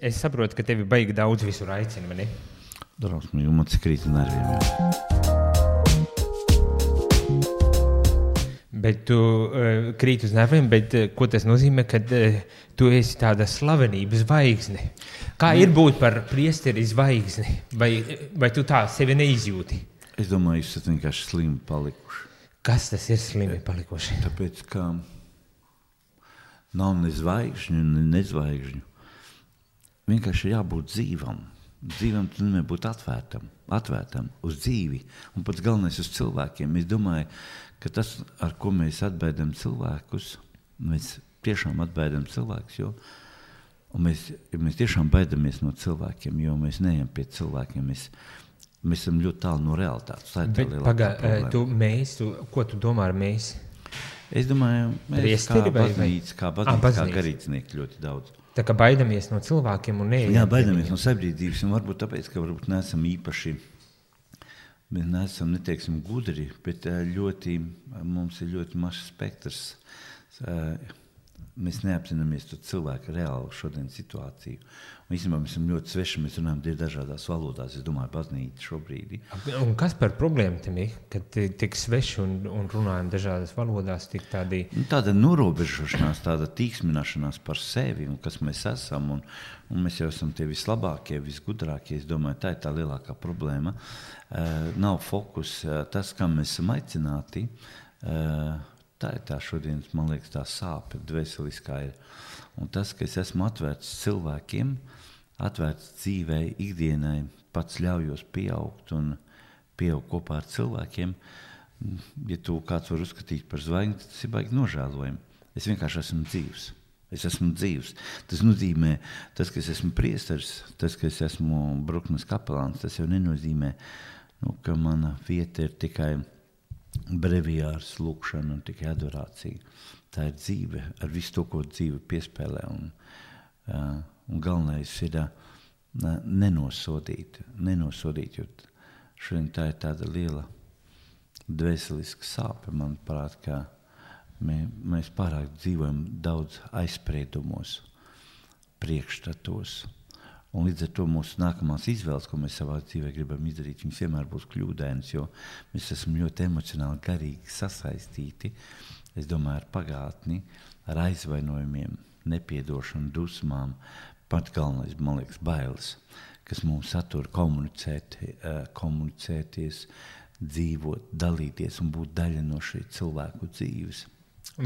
Es saprotu, ka tevi baigi daudz visur aicina, vai ne? Drausmīgi, man cik krīt nerviem. Bet tu krīt uz nerviem, bet ko tas nozīmē, kad tu esi tāda slavenības zvaigzne? Kā ir būt par priesteri zvaigzni? Vai tu tā sevi neizjūti? Es domāju, jūs esat vienkārši slimi palikuši. Kas tas ir slimi palikuši? Tāpēc, ka nav ne zvaigžņu, ne nezvaigžņu. Vienkārši jābūt dzīvam. Dzīvam tu nevar būt atvērtam uz dzīvi. Un pats galvenais uz cilvēkiem. Es domāju, ka tas, ar ko mēs atbaidam cilvēkus, mēs tiešām atbaidam cilvēkus, jo mēs tiešām baidamies no cilvēkiem, jo mēs neejam pie cilvēkiem. Mēs esam ļoti tālu no realitātes. Tā ir tā lielākā problēma. Ko tu domā ar mēs? Es domāju, mēs kā garīdznieki ļoti daudz. Tā kā baidamies no cilvēkiem un neejam. Jā, baidamies no sabiedrības, un varbūt tāpēc, ka varbūt neesam īpaši, mēs neesam, neteiksim, gudri, bet mums ir ļoti mašs spektrs. Mēs neapzināmies to cilvēku reālu šodien situāciju. Un īstenībā mēs esam ļoti sveši, mēs runājam dažādās valodās, es domāju, baznīca šobrīd. Un kas par problēmu tam ir, kad tik sveši un runājam dažādās valodās, tik tādi... Tāda norobežošanās, tāda tīksmināšanās par sevi un kas mēs esam, un mēs jau esam tie vislabākie, visgudrākie, es domāju, tā ir tā lielākā problēma. Nav fokus, tas, kam mēs esam aicināti, tā ir tā šodienas, man liekas, tā sāpe dvēseliskā ir. Un tas, ka es esmu atvērts cilvēkiem, atvērts dzīvei, ikdienai, pats ļaujos pieaugt un pieaugt kopā ar cilvēkiem. Ja tu kāds var uzskatīt par zvaigzni, tas ir baigi nožēlojami. Es vienkārši esmu dzīvs. Es esmu dzīvs. Tas nozīmē, tas, ka es esmu priesteris, tas, ka es esmu Bruknes kapelāns, tas jau nenozīmē, ka mana vieta ir tikai breviārs, lūkšana un tikai adorācija. Tā ir dzīve ar visu to, ko dzīve piespēlē. Un galvenais ir nenosodīt, jo šodien tā ir tāda liela dvēseliska sāpe, manuprāt, ka mēs pārāk dzīvojam daudz aizspriedumos, priekšstatos. Un līdz ar to mūsu nākamās izvēles, ko mēs savā dzīvē gribam izdarīt, viņas vienmēr būs kļūdainas, jo mēs esam ļoti emocionāli garīgi sasaistīti, es domāju, ar pagātni, ar aizvainojumiem, nepiedošanu, dusmām, pat galvenais, man liekas, bailes, kas mums satur komunicēties, dzīvot, dalīties un būt daļa no šī cilvēku dzīves.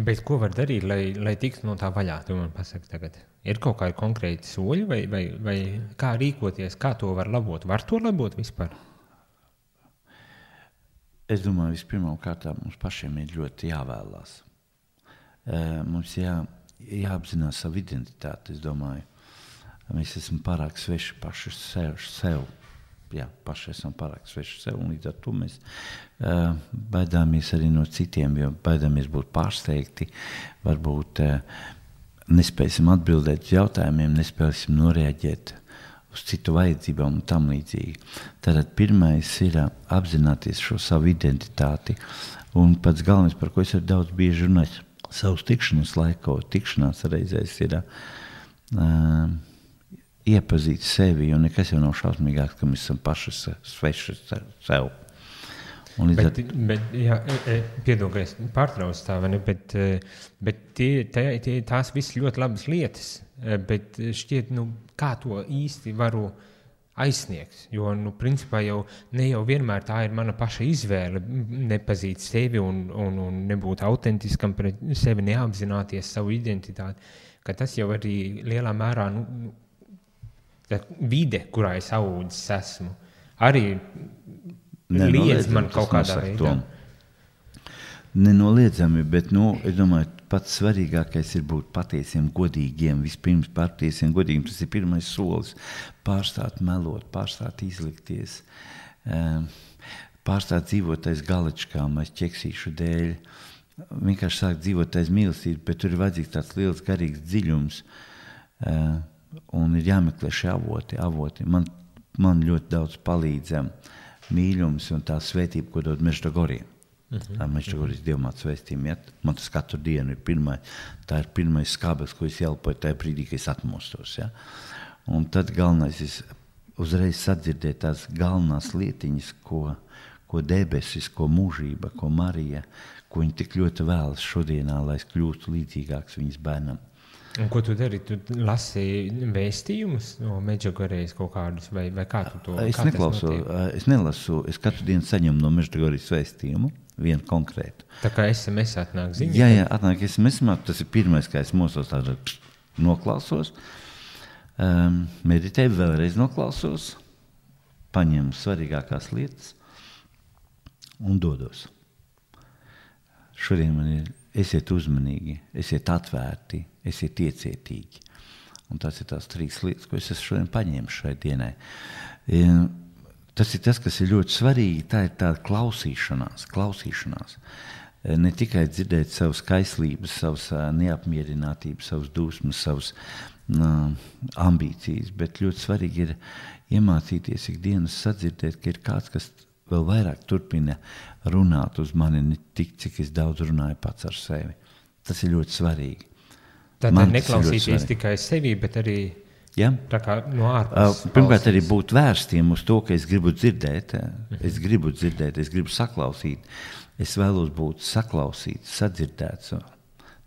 Bet ko var darīt, lai tiktu no tā vaļā, tu man pasaki tagad? Ir kaut kādi konkrēti soļi vai kā rīkoties, kā to var labot? Var to labot vispār? Es domāju, vispirmām kārtām mums pašiem ir ļoti jāvēlās. Mums jāapzinās savu identitāti, es domāju. Mēs esam pārāk sveši paši sev. Jā, paši esam pārāk sveši sev, un līdz ar to mēs baidāmies arī no citiem, jo baidāmies būt pārsteigti, varbūt nespēsim atbildēt uz jautājumiem, nespēsim noreaģēt uz citu vajadzībām un tam līdzīgi. Tātad pirmais ir apzināties šo savu identitāti, un pats galvenais, par ko es arī daudz bieži runāju, savus tikšanās reizēs ir iepazīt sevi, jo nekas jau nav šausmīgāks, ka mēs esam paši sveši sev. Piedod, ka es pārtraucu tā, vai ne? Bet tās viss ļoti labas lietas, bet šķiet, kā to īsti varu aizsniegt, jo, principā ne jau vienmēr tā ir mana paša izvēle nepazīt sevi un nebūt autentiskam pret sevi, neapzināties savu identitāti, ka tas jau arī lielā mērā, vide, kurā es audzis esmu, arī liedz man kaut kādā veidā. Nenoliedzami, bet, es domāju, pats svarīgākais ir būt patiesiem, godīgiem. Vispirms patiesiem, godīgiem, tas ir pirmais solis. Pārstāt melot, pārstāt izlikties, pārstāt dzīvot aiz galičkām, aiz ķeksīšu dēļ. Vienkārši sāk dzīvot aiz mīlestības, bet tur ir vajadzīgs tāds liels garīgs dziļums, un ir jāmeklē šie avoti. Man ļoti daudz palīdz mīļums un tā svētība, ko dod Meždagorija. Meždagoris dievmātes vēstījumi. Man tas katru dienu ir tā ir pirmais skābeklis, ko es ielpoju tajā brīdī, kad es atmostos. Ja? Un tad galvenais ir uzreiz sadzirdēt tās galvenās lietiņas, ko debesis, ko mūžība, ko Marija, ko viņa tik ļoti vēlas šodienā, lai es kļūtu līdzīgāks viņas bērnam. Un ko tu dari? Tu lasi vēstījumus no Medžugorijas kaut kādus, vai kā tu to? Es nelasu, es katru dienu saņemu no Medžugorijas vēstījumu, vienu konkrētu. Tā kā SMS atnāk ziņa? Jā, atnāk SMS, tas ir pirmais, kā es mosos tādu noklausos, meditēju, vēlreiz noklausos, paņemu svarīgākās lietas un dodos. Šodien man ir esiet uzmanīgi, esiet atvērti, esiet iecietīgi. Un tas ir tās 3 lietas, ko es esmu šodien paņēmis šai dienai. Tas ir tas, kas ir ļoti svarīgi, tā ir tāda klausīšanās. Ne tikai dzirdēt savas kaislības, savas neapmierinātības, savas dusmas, savas ambīcijas, bet ļoti svarīgi ir iemācīties ikdienas sadzirdēt, ka ir kāds, kas vēl vairāk turpina runāt uz mani, ne tik, cik es daudz runāju pats ar sevi. Tas ir ļoti svarīgi. Tātad neklausīties tikai sevi, bet arī tā kā no ārpus. Pirmkārt, arī būt vērstiem uz to, ka es gribu dzirdēt, es gribu saklausīt, es vēlos būt saklausīts, sadzirdēts.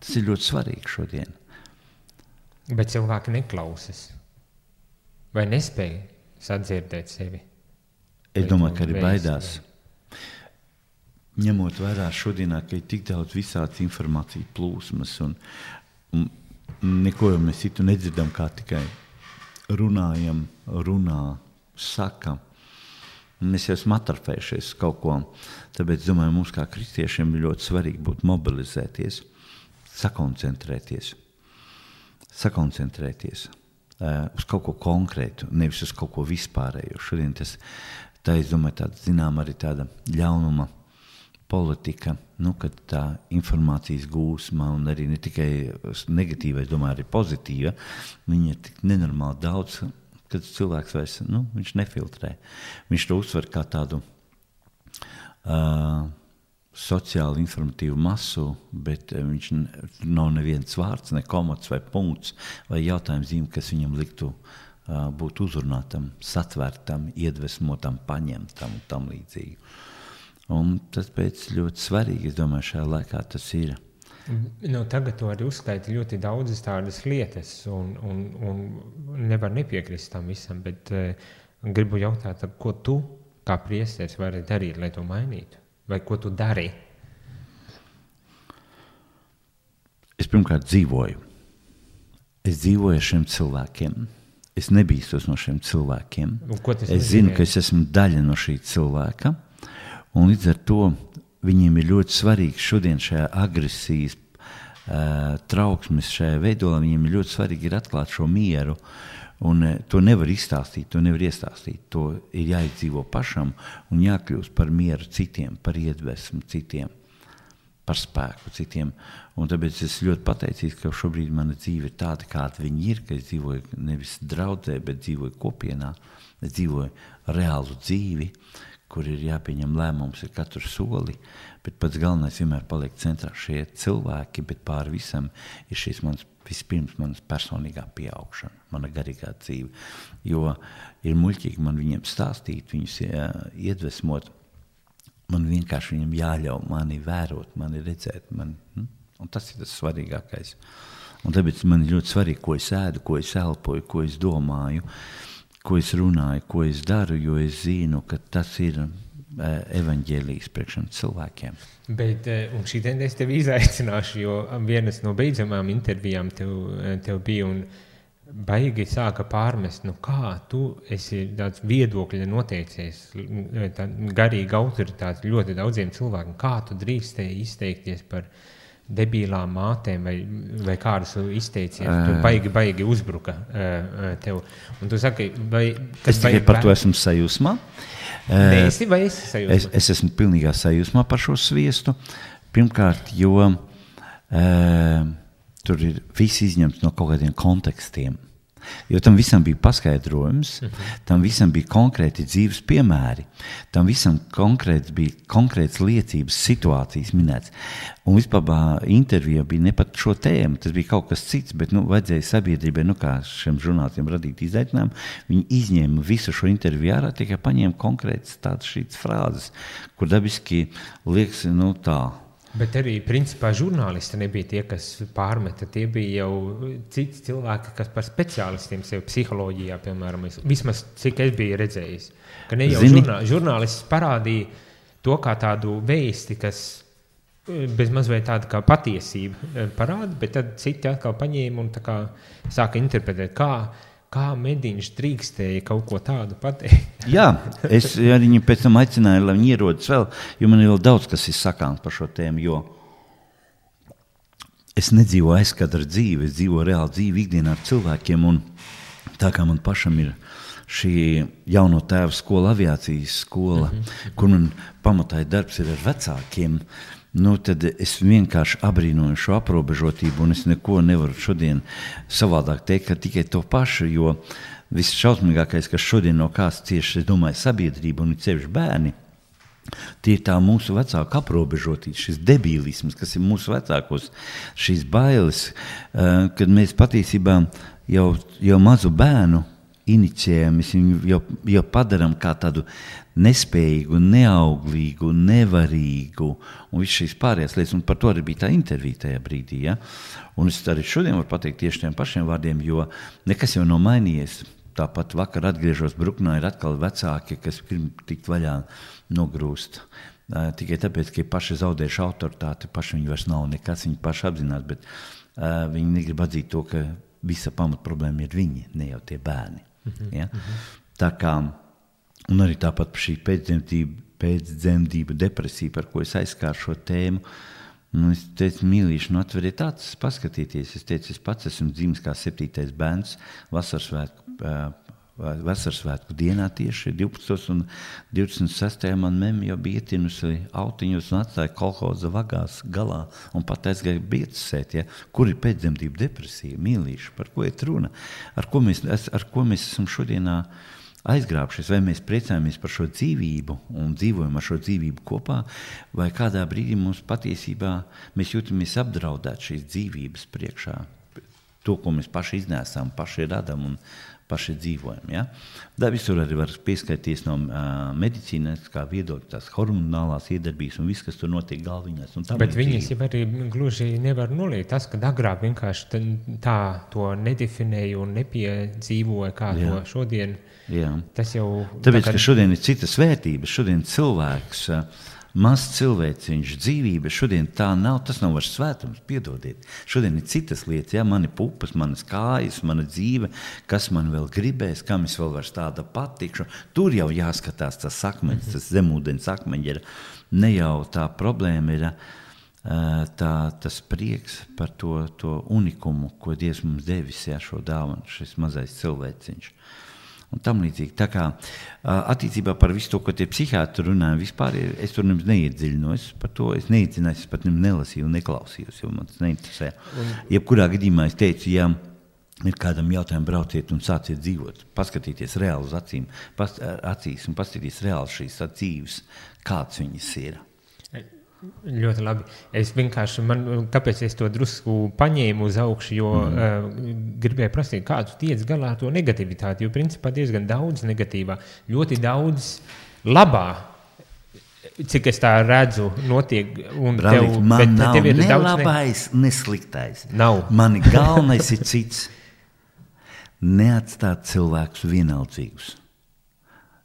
Tas ir ļoti svarīgi šodien. Bet cilvēki neklausas vai nespēja sadzirdēt sevi? Es domāju, ka arī baidās. Ņemot vērā šodienā, ka ir tik daudz visādas informācijas plūsmas un neko jau mēs citu nedzirdam, kā tikai runā, saka. Mēs jau esam atrafējušies kaut ko. Tāpēc, domāju, mums kā kristiešiem ir ļoti svarīgi būt mobilizēties, sakoncentrēties uz kaut ko konkrētu, nevis uz kaut ko vispārēju. Šodien tā, es domāju, arī tāda ļaunuma politika, kad tā informācijas gūsma un arī ne tikai negatīva, es domāju, arī pozitīva, viņa ir tik nenormāli daudz, kad cilvēks vairs, viņš nefiltrē. Viņš to uztver kā tādu sociāli informatīvu masu, bet viņš nav neviens vārds, ne komats vai punkts vai jautājums zīme, kas viņam liktu būt uzrunātam, satvērtam, iedvesmotam, paņemtam un tam līdzīgi. Un tas pēc ļoti svarīgi, es domāju, šajā laikā tas ir. Tagad tu arī uzskaiti ļoti daudzas tādas lietas un nevar nepiekrist tam visam, bet gribu jautāt, ko tu kā priesteris vari darīt, lai to mainītu? Vai ko tu dari? Es pirmkārt dzīvoju. Es dzīvoju ar šiem cilvēkiem. Es nebīstos no šiem cilvēkiem. Es zinu, ka es esmu daļa no šī cilvēka. Un līdz ar to viņiem ir ļoti svarīgi šodien šajā agresijas trauksmes šajā veidolā. Viņiem ir ļoti svarīgi ir atklāt šo mieru. Un to nevar izstāstīt, to nevar iestāstīt. To ir jāizdzīvo pašam un jākļūst par mieru citiem, par iedvesmu citiem, par spēku citiem. Un tāpēc es ļoti pateicīgs, ka šobrīd mana dzīve ir tāda, kāda viņa ir, ka es dzīvoju nevis draudzē, bet dzīvoju kopienā. Es dzīvoju reālu dzīvi, kur ir jāpieņem lēmums ar katru soli, bet pats galvenais vienmēr paliek centrā šie cilvēki, bet pāri visam ir šīs vispirms manas personīgā pieaugšana, mana garīgā dzīve. Jo ir muļķīgi man viņiem stāstīt, viņus iedvesmot, man vienkārši viņiem jāļauj mani vērot, mani redzēt, un tas ir tas svarīgākais. Un tāpēc man ir ļoti svarīgi, ko es ēdu, ko es elpoju, ko es domāju, ko es runāju, ko es daru, jo es zinu, ka tas ir evaņģēlijs priekš cilvēkiem. Bet, un šī tendenci tevi izaicināšu, jo vienas no beidzamām intervijām tev bija un baigi sāka pārmest, kā tu esi tāds viedokļa noteicies, garīga autoritāte ļoti daudziem cilvēkiem, kā tu drīkstēji izteikties par debīlām mātēm vai kādus izteicienus, tu baigi uzbruka tev. Un tu saki, es tikai par to esmu sajūsmā. Esi vai esi sajūsmā? Es esmu pilnīgā sajūsmā par šo sviestu. Pirmkārt, jo tur ir viss izņemts no kaut kādiem kontekstiem. Jo tam visam bija paskaidrojums, tam visam bija konkrēti dzīves piemēri, tam visam bija konkrētas liecības, situācijas minēts. Un vispār intervija bija ne pat šo tēmu, tas bija kaut kas cits, bet vajadzēja sabiedrībai, kā šiem žurnālistiem radīt izaicinājumu, viņi izņēma visu šo interviju ārā, tikai paņēma konkrētas tādas šīs frāzes, kur dabiski liekas, tā. Bet arī, principā, žurnālisti nebija tie, kas pārmeta. Tie bija jau citi cilvēki, kas par speciālistiem sev psiholoģijā, piemēram, vismaz cik es biju redzējis. Ka ne jau žurnālists parādīja to kā tādu vēsti, kas bez mazliet tāda kā patiesība parāda, bet tad citi atkal paņēma un tā kā sāka interpretēt, kā Mediņš drīkstēja kaut ko tādu pateikt. Jā, es arī viņu pēc tam aicināju, lai viņi ierodas vēl, jo man ir vēl daudz, kas ir sakāms par šo tēmu, jo es nedzīvoju aizkadra dzīvi, es dzīvoju reāli dzīvi ikdienā ar cilvēkiem, un tā kā man pašam ir šī jauno tēvu skola, aviācijas skola, kur man pamatā darbs ir ar vecākiem, tad es vienkārši abrīnoju šo aprobežotību, un es neko nevaru šodien savādāk teikt, ka tikai to pašu, jo viss šausmīgākais, kas šodien no kāds cieši, es domāju, sabiedrība un sevišķi bērni, tie ir tā mūsu vecāku aprobežotība, šis debīlisms, kas ir mūsu vecākos, šīs bailes, kad mēs patiesībā jau mazu bērnu inicijējam, mēs viņu jau padaram kā tādu nespējīgu, neauglīgu, nevarīgu un viss šīs pārējās lietas, un par to arī bija tā intervija tajā brīdī. Ja? Un es arī šodien varu pateikt tieši tiem pašiem vārdiem, jo nekas jau nav mainījies. Tāpat vakar atgriežos Bruknā, ir atkal vecāki, kas grib tikt vaļā nogrūst. Tikai tāpēc, ka paši zaudējuši autoritāti, paši viņi vairs nav nekas, viņi paši apzinās, bet viņi negrib atzīt to, ka visa pamat problēma ir viņi, ne jau tie bērni. Ja? Tā kā, un arī tāpat šī pēcdzemdību depresija, par ko es aizskāru šo tēmu, es teicu, mīlīši, atveriet acis, paskatieties. Es teicu, es pats esmu dzimis kā 7. bērns vasarsvētku dienā tieši 12. un 26. man memme jau bija ietinusi autiņus un atstāja kolhoza vagās galā un pat aizgāja biecasēt. Ja? Kur ir pēcdzemdību depresija, mīlīši, par ko ir runa? Ar ko mēs esam šodienā aizgrābšies, vai mēs priecājamies par šo dzīvību un dzīvojam ar šo dzīvību kopā, vai kādā brīdī mums patiesībā mēs jūtamies apdraudēt šīs dzīvības priekšā. To, ko mēs paši iznēsām, paši radam un paši dzīvojam. Ja? Tā visur arī var pieskaities no medicīnas, kā viedokļa, tās hormonālās iedarbības un viss, kas tur notiek galviņās. Bet viņas jau arī gluži nevar noliegt. Tas, ka agrāk vienkārši tā to nedefinēja un nepiedzīvoja, kā to šodien. Jā. Tas jau... Tāpēc, ka šodien ir citas vērtības, šodien cilvēks... Mazs cilvēciņš, dzīvība, šodien tā nav, tas nav vairs svētums, piedodiet. Šodien ir citas lietas, ja, mani pupas, manas kājas, mana dzīve, kas man vēl gribēs, kam es vēl vairs tāda patikšu. Tur jau jāskatās tas akmeņs, tas zemūdens akmeņi ir, ne jau tā problēma ir tas prieks par to unikumu, ko Dievs mums devis, ja, šo dāvanu, šis mazais cilvēciņš. Un tam līdzīgi. Tā kā attiecībā par visu to, ko tie psihiatri runāja, vispār es tur nemaz neiedziļinos par to, es neiedziļinājos, es pat nelasīju un neklausījos, jo man tas neinteresē. Jebkurā gadījumā es teicu, ja ir kādam jautājumu, brauciet un sāciet dzīvot, paskatīties reāli uz acīs un paskatīties reāli šīs dzīves, kāds viņas ir. Ļoti labi. Es vienkārši, kāpēc es to drusku paņēmu uz augšu, jo gribēju prasīt, kā tu tiec galā ar to negativitāti, jo principā diezgan daudz negatīvā, ļoti daudz labā, cik es tā redzu, notiek. Un Brālīt, man nav ne labais, ne sliktais. Nav. Mani galvenais ir cits. Neatstāt cilvēkus vienaldzīgus.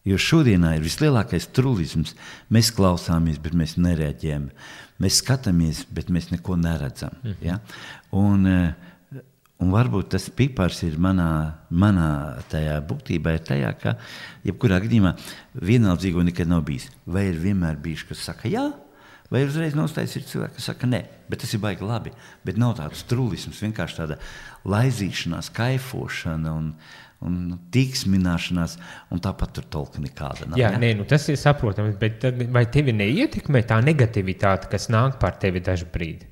Jo šodienā ir vislielākais trulisms. Mēs klausāmies, bet mēs nereaģējam. Mēs skatāmies, bet mēs neko neredzam. Ja? Un varbūt tas pipars ir manā tajā būtībā ir tajā, ka jebkurā gadījumā vienaldzīgo nekad nav bijis. Vai ir vienmēr bijuši, kas saka jā, vai uzreiz nostājas ir cilvēki, kas saka nē. Bet tas ir baigi labi. Bet nav tāds trulisms, vienkārši tāda laizīšanās, kaifošana un tīksmināšanās, un tāpat tur tolka nekāda nav. Jā, nē, tas ir saprotams, bet vai tevi neietekmē tā negativitāte, kas nāk par tevi dažu brīdi?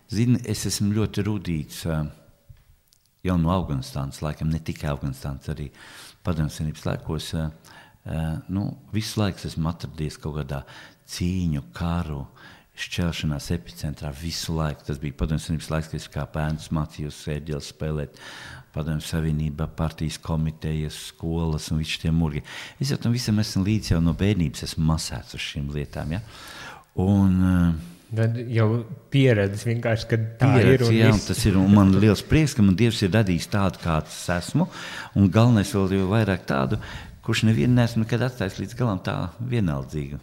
Zini, es esmu ļoti rūdīts jau no Afganistānas laikam, ne tikai Afganistānas, arī Padomju Savienības laikos, visu laiku esmu atradies kaut kādā cīņu, karu, šķelšanās epicentrā visu laiku. Tas bija Padomju Savienības laiks, kad es kā bērns mācījos ērģeli spēlēt Padomju Savienība, partijas komitejas, skolas un visi tie murgi. Es jau tam visam esmu līdz jau no bērnības esmu masēts uz šīm lietām, ja? Un tad jau pieredze vienkārši, kad tā pieredze, ir. Jā, tas ir, un man liels prieks, ka man Dievs ir radījis tādu, kāds esmu, un galvenais vēl jau vairāk tādu, kurš nevienu neesmu nekad atstājis līdz galam tā vienaldzīgu.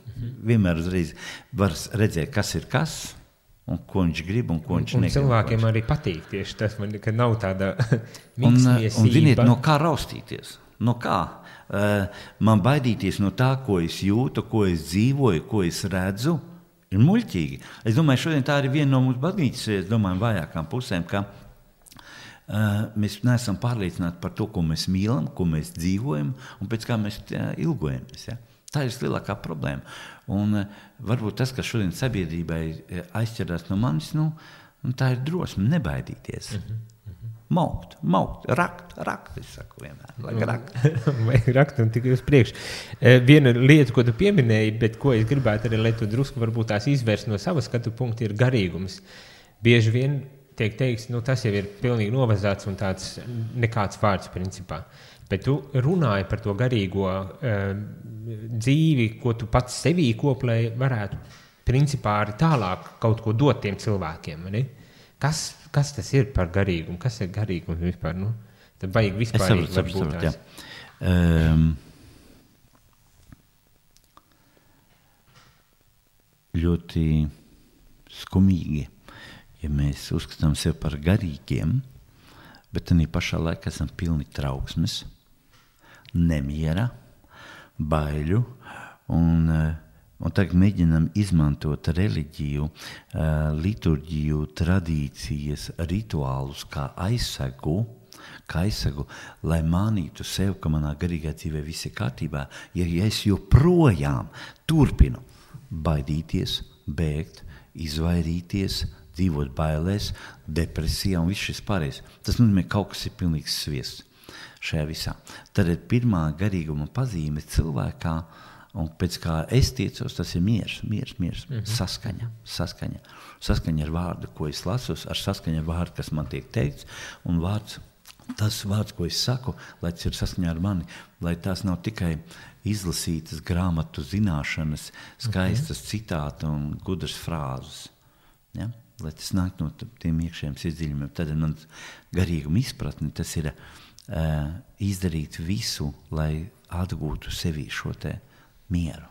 Vienmēr uzreiz var redzēt, kas ir kas, un ko viņš grib, un ko viņš negrib. Un cilvēkiem arī patīk tieši tas, ka nav tāda miksmiesība. Un ziniet, no kā raustīties? No kā? Man baidīties no tā, ko es jūtu, ko es dzīvoju, ko es redzu, ir muļķīgi. Es domāju, šodien tā ir viena no mūsu baznīcas, vājākām pusēm, ka mēs neesam pārliecināti par to, ko mēs mīlam, ko mēs dzīvojam un pēc kā mēs ilgojamies. Ja? Tā ir lielākā problēma. Un varbūt tas, kas šodien sabiedrībai aizķerās no manis, tā ir drosme nebaidīties. Maukt, rakt, es saku vienmēr. Vajag rakt un tikai uz priekšu. Viena lieta, ko tu pieminēji, bet ko es gribētu arī, lai tu drusku varbūt tās izvērst no savas skatu punkta, ir garīgums. Bieži vien tiek teiks, tas jau ir pilnīgi novazāts un tāds nekāds vārds principā. Bet tu runāji par to garīgo dzīvi, ko tu pats sevī koplēji, varētu principā arī tālāk kaut ko dot tiem cilvēkiem, ne? Kas tas ir par garīgumu? Kas ir garīgums vispār? Tad vajag vispārīgi varbūt tās. Ļoti skumīgi, ja mēs uzskatām sevi par garīgiem, bet tādā pašā laikā esam pilni trauksmes, nemiera, baiļu un tagad mēģinām izmantot reliģiju, liturģiju, tradīcijas, rituālus kā aizsegu, lai mānītu sev, ka manā garīgā dzīvē viss ir kārtībā, ja es joprojām turpinu baidīties, bēgt, izvairīties, dzīvot bailēs, depresijā un viss šis pārējais. Tas nozīmē, kaut kas ir pilnīgs sviests šajā visā. Tad pirmā garīguma pazīme cilvēkā, un pēc kā es tiecos, tas ir miers, saskaņa ar vārdu, ko es lasu, ar saskaņa ar vārdu, kas man tiek teikts, un tas vārds, ko es saku, lai tas ir saskaņā ar mani, lai tās nav tikai izlasītas grāmatu zināšanas, skaistas citāti un gudras frāzes, ja? Lai tas nāk no tiem iekšējiem sirdsdziļumiem. Tad man garīguma izpratne, tas ir izdarīt visu, lai atgūtu sevī šo te mieru.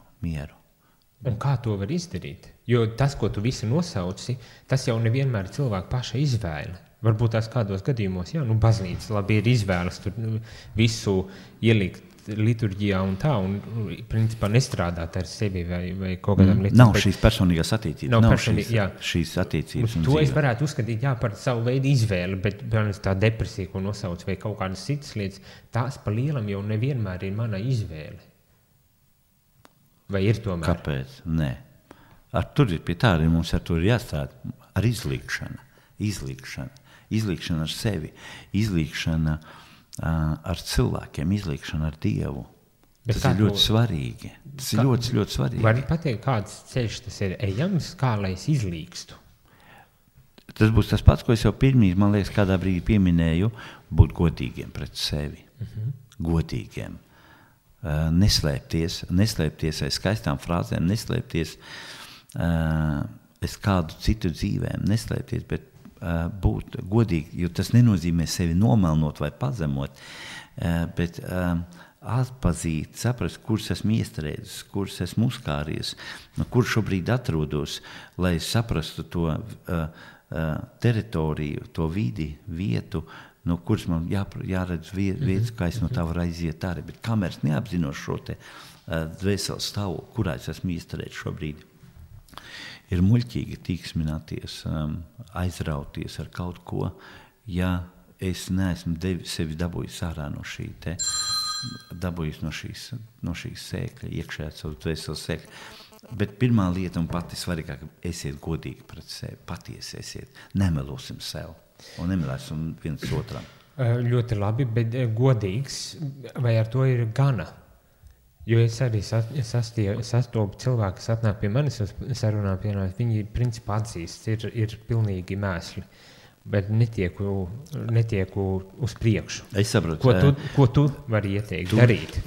Un kā to var izdarīt? Jo tas, ko tu visu nosauci, tas jau nevienmēr ir cilvēka paša izvēle. Varbūt tās kādos gadījumos, baznīca labi ir izvēles tur visu ielikt liturģijā un tā, un principā nestrādāt ar sevi vai kaut kādām lietām. Nav šīs personīgās attiecības. Nav šīs attiecības un to dzīve. Es varētu uzskatīt, par savu veidu izvēli, bet tā depresija, ko nosauc, vai kaut kādas citas lietas, tās pa lielam jau nevienmēr ir mana izvēle. Vai ir tomēr? Kāpēc? Nē. Tur ir pie tā, arī mums ar to ir jāstrādā. Ar izlīgšana ar sevi, izlīgšana ar cilvēkiem, izlīgšana ar Dievu. Tas ir ļoti svarīgi. Tas ir ļoti svarīgi. Vari pateikt, kāds ceļš tas ir ejams, kā lai es izlīgstu? Tas būs tas pats, ko es jau pirmīt, man liekas, kādā brīdī pieminēju, būt godīgiem pret sevi. Godīgiem. Neslēpties aiz skaistām frāzēm, neslēpties aiz kādu citu dzīvēm, neslēpties, bet būt godīgi, jo tas nenozīmē sevi nomelnot vai pazemot, bet atpazīt, saprast, kurš esmu iestrēdzis, kurš esmu uzkāries, kur šobrīd atrodos, lai saprastu to teritoriju, to vidi, vietu, no kuras man jāredz vietas, kā es no tā varu aiziet arī. Bet kamēr es neapzinos šo te dvēseles stāvokli, kurā es esmu iestrēdzis šobrīd, ir muļķīgi tīksmināties, aizrauties ar kaut ko, ja es neesmu sevi dabūjis ārā no šī te, dabūjis no šīs sēkļa, iekšējā savu dvēseles sēkļa. Bet pirmā lieta un pati svarīgāka, esiet godīgi pret sevi, patiesi esiet, nemelosim sev un nemelēsim viens otram. Ļoti labi, bet godīgs, vai ar to ir gana? Jo es arī sastopu cilvēku, kas atnāk pie manis uz sarunām, piemēram, viņi principā atzīst, ir pilnīgi mēsli, bet netieku uz priekšu. Es saprotu. Ko tu vari ieteikt darīt?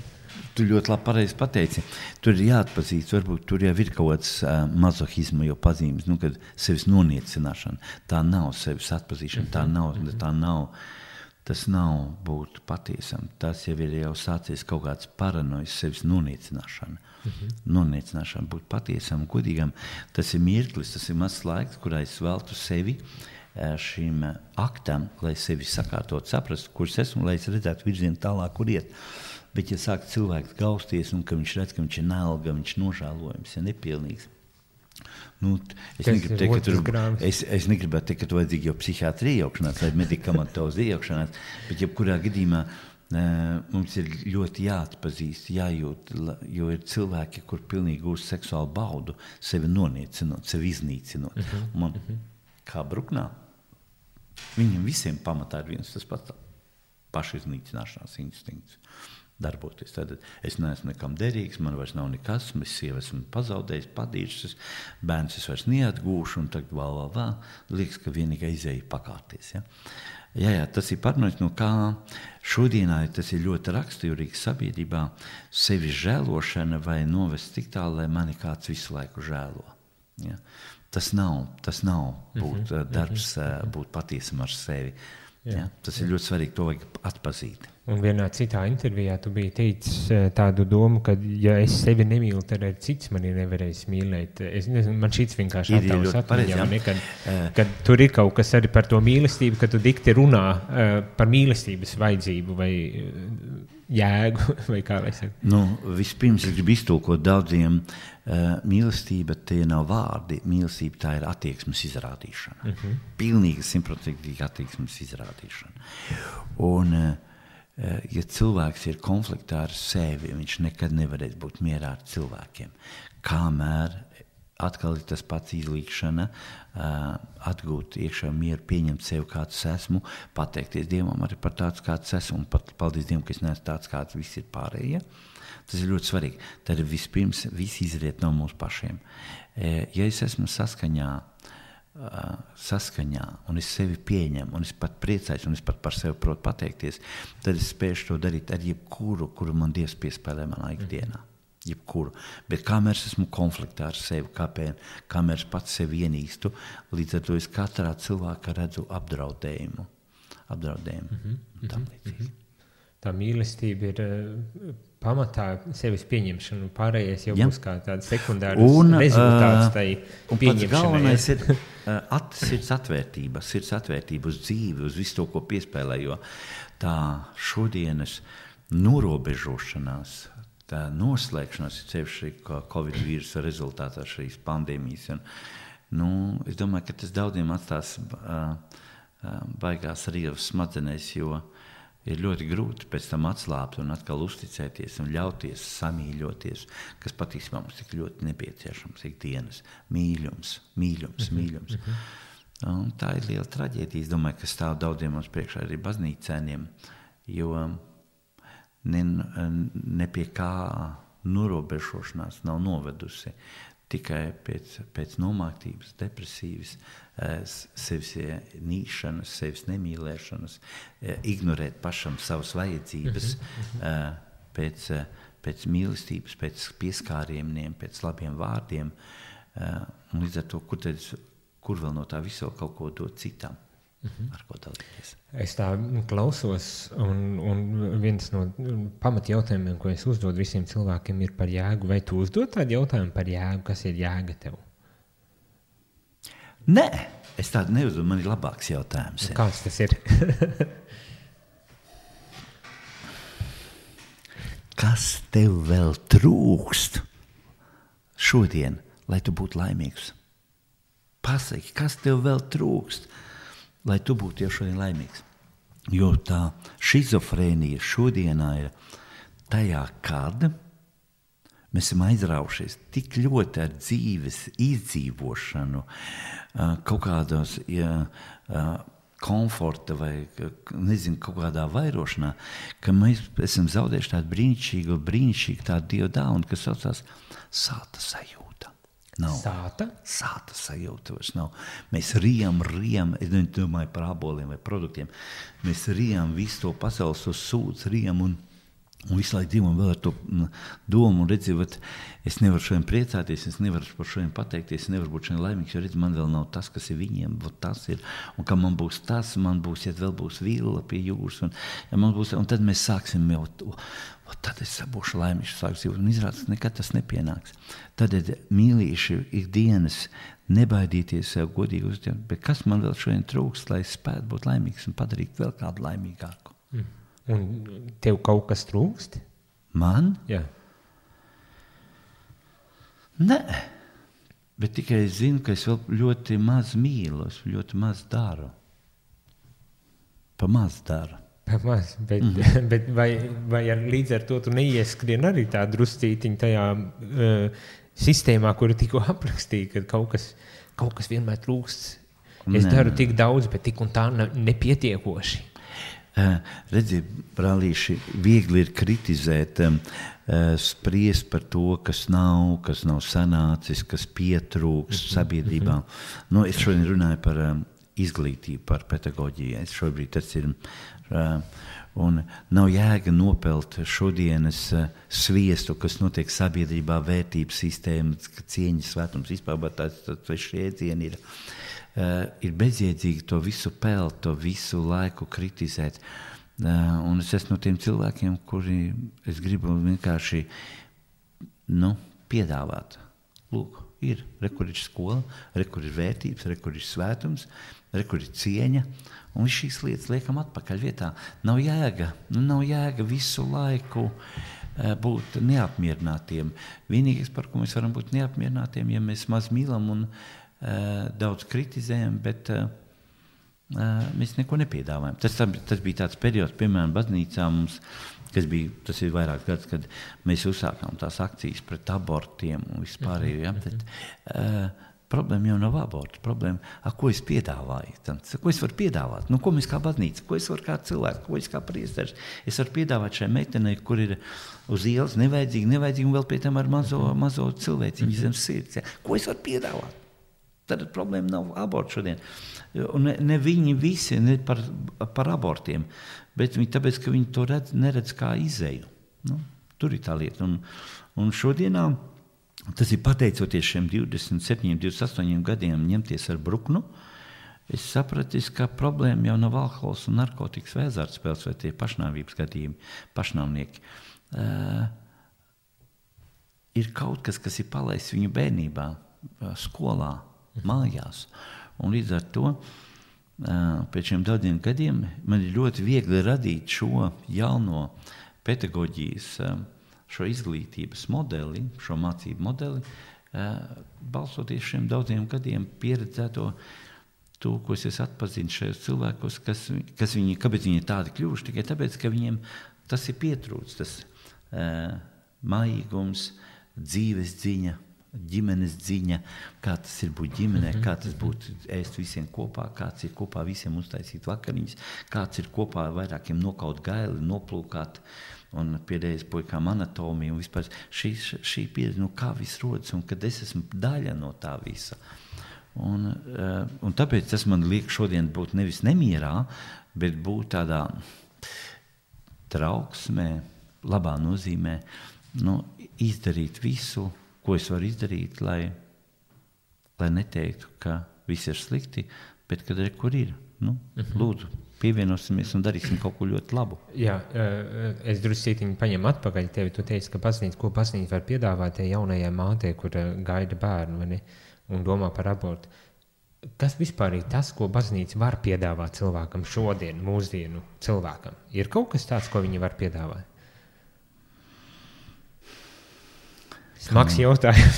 Tu ļoti labi pareizi pateici. Tur ir jāatpazīst, varbūt tur jau ir kaut kāds mazohisma jau pazīmes, kad sevis noniecināšana. Tā nav sevis atpazīšana, tas nav būt patiesam. Tas jau ir jau sācies kaut kāds paranojas sevis noniecināšana. Noniecināšana, būt patiesam, godīgam. Tas ir mirklis, tas ir mazs laiks, kurā es veltu sevi šim aktam, lai sevi sakārtot, saprast, kurš esmu, lai es redzētu virzienu tālāk, kur iet. Bet, ja sāk cilvēks gausties, un ka viņš redz, ka viņš ir nelga, viņš nožēlojams, ja nepilnīgs. Es negribētu teikt, ka tu vajadzīgi jau psihiatri iejaukšanās vai medikamentozi iejaukšanās, bet jebkurā gadījumā mums ir ļoti jāatpazīst, jājūt, jo ir cilvēki, kur pilnīgi gūst seksuālu baudu, sevi noniecinot, sevi iznīcinot. Man, kā Bruknā, viņiem visiem pamatā ir viens tas pats pašiznīcināšanās instinkts. Darboties. Tad es neesmu nekam derīgs, man vairs nav nekas, es sievu esmu pazaudējis, padīšas, bērns es vairs neatgūšu, un tagad liekas, ka vienīgā izēja pakārties. Ja? Jā, tas ir parunājums, no kā šodienā tas ir ļoti raksturīgs sabiedrībā sevi žēlošana vai novest tik tālu, lai mani kāds visu laiku žēlo. Ja? Tas nav būt darbs, būt patiesam ar sevi. Ja? Tas ir ļoti svarīgi, to vajag atpazīt. Un vienā citā intervijā tu biji teicis tādu domu, ka, ja es sevi nemīlu, tad arī cits mani nevarēs mīlēt. Es nezinu, man šits vienkārši attēlos atmiņā, kad tur ir kaut kas arī par to mīlestību, ka tu dikti runā par mīlestības vajadzību vai jēgu, vai kā lai saka. Vispirms es gribu iztulkot daudziem, mīlestība tie nav vārdi, mīlestība tā ir attieksmes izrādīšana. Pilnīgi 100% attieksmes izrādīšana. Un ja cilvēks ir konfliktā ar sevi, viņš nekad nevarēs būt mierā ar cilvēkiem. Kamēr atkal ir tas pats izlīkšana, atgūt iekšā mieru, pieņemt sevi kāds esmu, pateikties Dievam arī par tāds kāds esmu, un paldies Dievam, ka es neesmu tāds kāds, viss ir pārējie. Tas ir ļoti svarīgi. Tad vispirms viss izriet no mūsu pašiem. Ja es esmu saskaņā, un es sevi pieņemu, un es pat priecājos, un es pat par sevi protu pateikties, tad es spēšu to darīt ar jebkuru, kuru man Dievs piespēlē manā ikdienā. Jebkuru. Bet kamēr es esmu konfliktā ar sevi, kamēr es pats sevi ienīstu, līdz ar to es katrā cilvēkā redzu apdraudējumu. Tam līdzīgi. Tā mīlestība ir pamatā sevis pieņemšana, un pārējais jau būs kā tāds sekundārs rezultāts tai pieņemšanai. Un pats galvenais ir sirds atvērtība uz dzīvi, uz visu to, ko piespēlē, jo tā šodienas norobežošanās, tā noslēgšanās ir sevišķi Covid vīrusa rezultātā šīs pandēmijas. Es domāju, ka tas daudziem atstās baigās rievas smadzenēs, jo ir ļoti grūti pēc tam atslābt un atkal uzticēties un ļauties samīļoties, kas patiesībā mums tik ļoti nepieciešams ikdienas. Mīļums. Un tā ir liela traģēdija. Es domāju, ka stāv daudziem mums priekšā arī baznīcēniem, jo ne pie kā norobežošanās nav novedusi. Tikai pēc nomāktības, depresīvas, sevis nīšanas, sevis nemīlēšanas, ignorēt pašam savas vajadzības, pēc mīlestības, pēc pieskārieniem, pēc labiem vārdiem. Un līdz ar to, kur vēl no tā visu kaut ko dot citam, ar ko dalīties. Es tā klausos, un viens no pamatjautājumiem, ko es uzdodu visiem cilvēkiem, ir par jēgu. Vai tu uzdod tādu jautājumu par jēgu? Kas ir jēga tev? Nē, es tādu neuzdodu. Man ir labāks jautājums. Kāds tas ir? Kas tev vēl trūkst šodien, lai tu būtu laimīgs? Pasaki, kas tev vēl trūkst, lai tu būtu jau šodien laimīgs. Jo tā šizofrēnija šodienā ir tajā, kad mēs esam aizraušies tik ļoti ar dzīves izdzīvošanu, kaut kādos komforta vai, nezinu, kaut kādā vairošanā, ka mēs esam zaudējuši tādu brīnišķīgu tādu Dievu dāvanu, kas saucās sāta sajūta. Nav. Sāta sajūta vairs nav. Mēs rijam, es domāju par aboliem vai produktiem, mēs rijam visu to pasaules uz sūdz, rijam un visu laiku Dievam vēl ar to domu un redzi, es nevaru šodien priecāties, es nevaru par šodien pateikties, es nevaru būt šodien laimīgs, jo redzi, man vēl nav tas, kas ir viņiem, tas ir, un ka man būs tas, man būs, ja vēl būs vila pie jūras, un, ja man būs, un tad mēs sāksim jau, tad es būšu laimīgs, un izrādās, nekad tas nepienāks. Tad mīlīši ikdienas nebaidīties sev godīgi uzņemt, bet kas man vēl šodien trūkst, lai es spētu būt laimīgs un padarīt vēl kādu laimīgāku? Un tev kaut kas trūkst? Man? Jā. Nē, bet tikai es zinu, ka es vēl ļoti maz mīlu, es ļoti maz daru. Pa maz daru. Bet vai līdz ar to tu neieskrien arī tā druscītiņ tajā sistēmā, kuru tikko aprakstīja, ka kaut kas vienmēr trūkst. Es daru tik daudz, bet tik un tā nepietiekoši. Redzi, brālīši, viegli ir kritizēt, spriest par to, kas nav sanācis, kas pietrūks sabiedrībā. Nu, es šodien runāju par izglītību, par pedagoģiju. Šobrīd tas ir. Un nav jēga nopelt šodienas sviestu, kas notiek sabiedrībā, vērtības sistēmas, cieņas svētums, vispār tas jēdzieni ir. Ir bezjēdzīgi to visu pelt, to visu laiku kritizēt. Un es esmu no tiem cilvēkiem, kuri es gribu vienkārši piedāvāt. Lūk, kur ir skola, kur ir vērtības, kur ir svētums, kur ir cieņa. Un šīs lietas liekam atpakaļ vietā. Nav jēga visu laiku būt neapmierinātiem. Vienīgais, par ko mēs varam būt neapmierinātiem, ja mēs maz mīlam un daudz kritizējam, bet mēs neko nepiedāvājam. Tas bija tāds periods, piemēram, baznīcā mums, tas ir vairāks gads, kad mēs uzsākām tās akcijas pret abortiem un vispārējo. Ja? Tad, problēma jau nav aborts. Problēma, ko es piedāvāju? Ko es varu piedāvāt? Ko mēs kā baznīca? Ko es varu kā cilvēks? Ko es kā priesteris? Es varu piedāvāt šai meitenei, kur ir uz ielas nevajadzīgi un vēl pie tam ar mazo cilvēciņu zem sirds. Ja? Ko es varu piedāvāt? Tad problēma nav aborts šodien. Un ne viņi visi ne par abortiem, bet tāpēc, ka viņi to neredz kā izeju. Tur ir tā lieta. Un šodienā tas ir pateicoties šiem 27, 28 gadiem ņemties ar bruknu. Es sapratu, ka problēma jau nav alkohols un narkotikas vai azartspēles vai tie pašnāvības gadījumi, pašnāvnieki. Ir kaut kas ir palaists viņu bērnībā, skolā, mājās. Un līdz ar to pēc šiem daudziem gadiem man ir ļoti viegli radīt šo jauno pedagoģijas, šo izglītības modeli, šo mācību modeli, balstoties šiem daudziem gadiem pieredzēto to, ko es atpazinu šajos cilvēkos, kāpēc viņi tādi kļuvuši, tikai tāpēc, ka viņiem tas ir pietrūcis, tas mājīgums, dzīves dziņa, ģimenes dziņa, kā tas ir būt ģimenē, kā tas būtu ēst visiem kopā, kāds ir kopā visiem uztaisīt vakariņas, kāds ir kopā vairākiem nokaut gaili, noplūkāt un pēdējais puikām anatomiju un vispār šī pieredze, kā viss rodas un kad es esmu daļa no tā visa. Un tāpēc tas man liek šodien būt nevis nemierā, bet būt tādā trauksmē, labā nozīmē, izdarīt visu, ko es varu izdarīt, lai neteiktu, ka viss ir slikti, bet kad kur ir. Lūdzu, pievienosimies un darīsim kaut ko ļoti labu. Jā, es druscītiņu paņemu atpakaļ tevi. Tu teici, ka ko baznīca var piedāvāt tai jaunajai mātei, kur gaida bērnu un domā par abortu. Kas vispār ir tas, ko baznīca var piedāvāt cilvēkam šodien, mūsdienu cilvēkam? Ir kaut kas tāds, ko viņi var piedāvāt? Smags jautājums.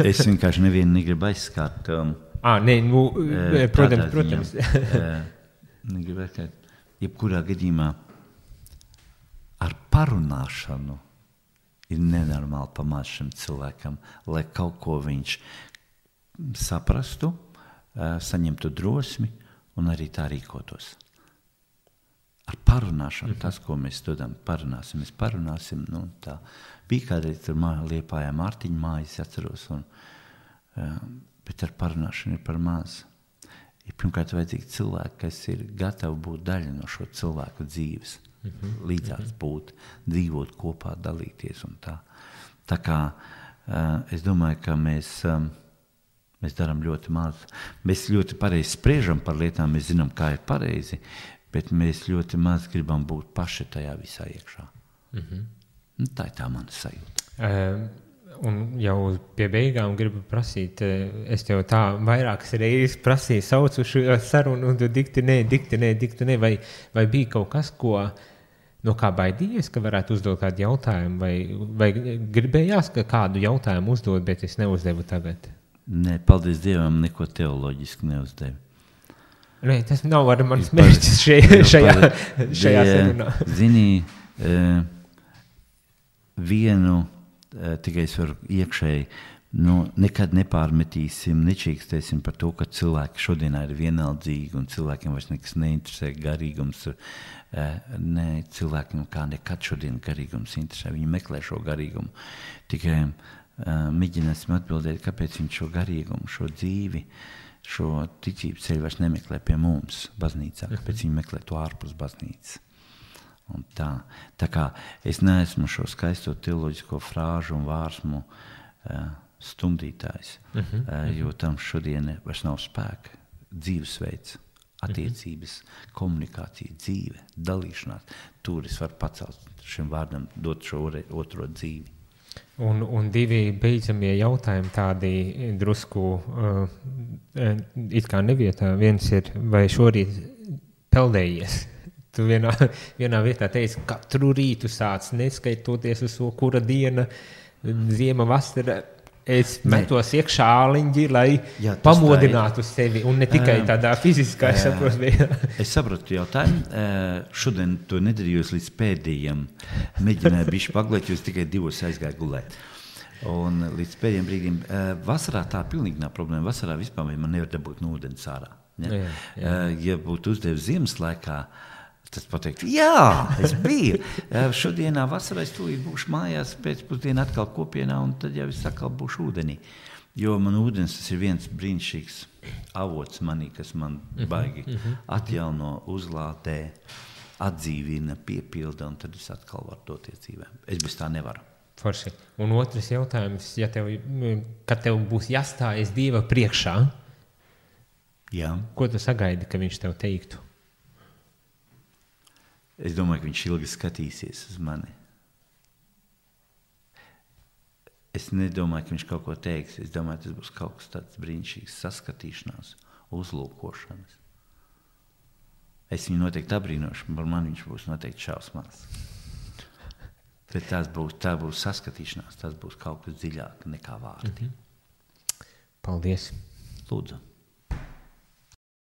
Es vienkārši nevienu negribu aizskart. Protams. Negribu aizskart. Jebkurā gadījumā ar parunāšanu ir nenormāli pamāc šim cilvēkam, lai kaut ko viņš saprastu, saņemtu drosmi un arī tā rīkotos. Ar parunāšanu, tas, ko mēs dodam, mēs parunāsim. Nu, tā. Bija kādreiz tur Liepājā Mārtiņa mājas, atceros, bet ar parunāšanu ir par maz. Ir pirmkārt vajadzīgi cilvēki, kas ir gatavi būt daļa no šo cilvēku dzīves, līdzās būt, dzīvot kopā, dalīties un tā. Tā kā es domāju, ka mēs darām ļoti maz. Mēs ļoti pareizi spriežam par lietām, mēs zinām, kā ir pareizi, bet mēs ļoti maz gribam būt paši tajā visā iekšā. Nu, tā ir tā mana sajūta. Un jau pie beigām gribu prasīt, es tev tā vairākas reizes prasīju, saucu šo sarunu, un tu dikti nē, vai bija kaut kas, no kā baidījies, ka varētu uzdot kādu jautājumu, vai gribējās, ka kādu jautājumu uzdot, bet es neuzdevu tagad? Nē, paldies Dievam, neko teoloģiski neuzdevu. Nē, tas nav ar manis mērķis šajā sarunā. Zini, vienu tikai es varu iekšēji, nekad nepārmetīsim, nečīkstēsim par to, ka cilvēki šodienā ir vienaldzīgi un cilvēkiem vairs nekas neinteresē garīgums. Nē, cilvēkiem kā nekad šodien garīgums interesē, viņi meklē šo garīgumu. Tikai mēģināsim atbildēt, kāpēc viņi šo garīgumu, šo dzīvi, šo ticības ceļu vairs nemeklē pie mums baznīcā, kāpēc viņi meklē to ārpus baznīcas. Un tā kā es neesmu šo skaisto teoloģisko frāžu un vārsmu stumdītājs, jo tam šodien vairs nav spēka. Dzīvesveids, attiecības, komunikācija, dzīve, dalīšanās. Tur es varu pacelt šim vārdam, dot šo otro dzīvi. Un divi beidzamie jautājumi tādi drusku it kā nevietā. Viens ir, vai šorīt peldējies? Tu vienā vietā teici, katru rītu sāc, neskaitoties uz to, kura diena, ziema, vasara. Es metos iekšā āliņģi, lai pamodinātu sevi, un ne tikai tādā fiziskā, Es saprotu jautājumu. Šodien to nedarījos līdz pēdējiem. Mēģināju bišķi paglēt, jo es tikai 2 aizgāju gulēt. Un līdz pēdējiem brīdiem. Vasarā tā pilnīgi nav problēma. Vasarā vispār man nevar dabūt no ūdens ārā. Ja? Ja būtu uzdevis ziemas laikā, tas pateikt, jā, es biju. Šodienā vasarā es tūlīt būšu mājās, pēcpusdienā atkal kopienā, un tad jau es atkal būšu ūdenī. Jo man ūdens tas ir viens brīnišķīgs avots manī, kas man baigi atjauno, uzlādē, atdzīvina, piepilda, un tad es atkal varu doties dzīvēm. Es bez tā nevaru. Forši. Un otrs jautājums, kad tev būs jāstājas Dieva priekšā, ko tu sagaidi, ka viņš tev teiktu? Es domāju, ka viņš ilgi skatīsies uz mani. Es nedomāju, ka viņš kaut ko teiks. Es domāju, tas būs kaut kas tāds brīnišķīgs saskatīšanās, uzlūkošanas. Es viņu noteikti abrīnošu, par mani viņš būs noteikti šausmās. Bet tā būs saskatīšanās, tas būs kaut kas dziļāk nekā vārdi. Paldies. Lūdzu.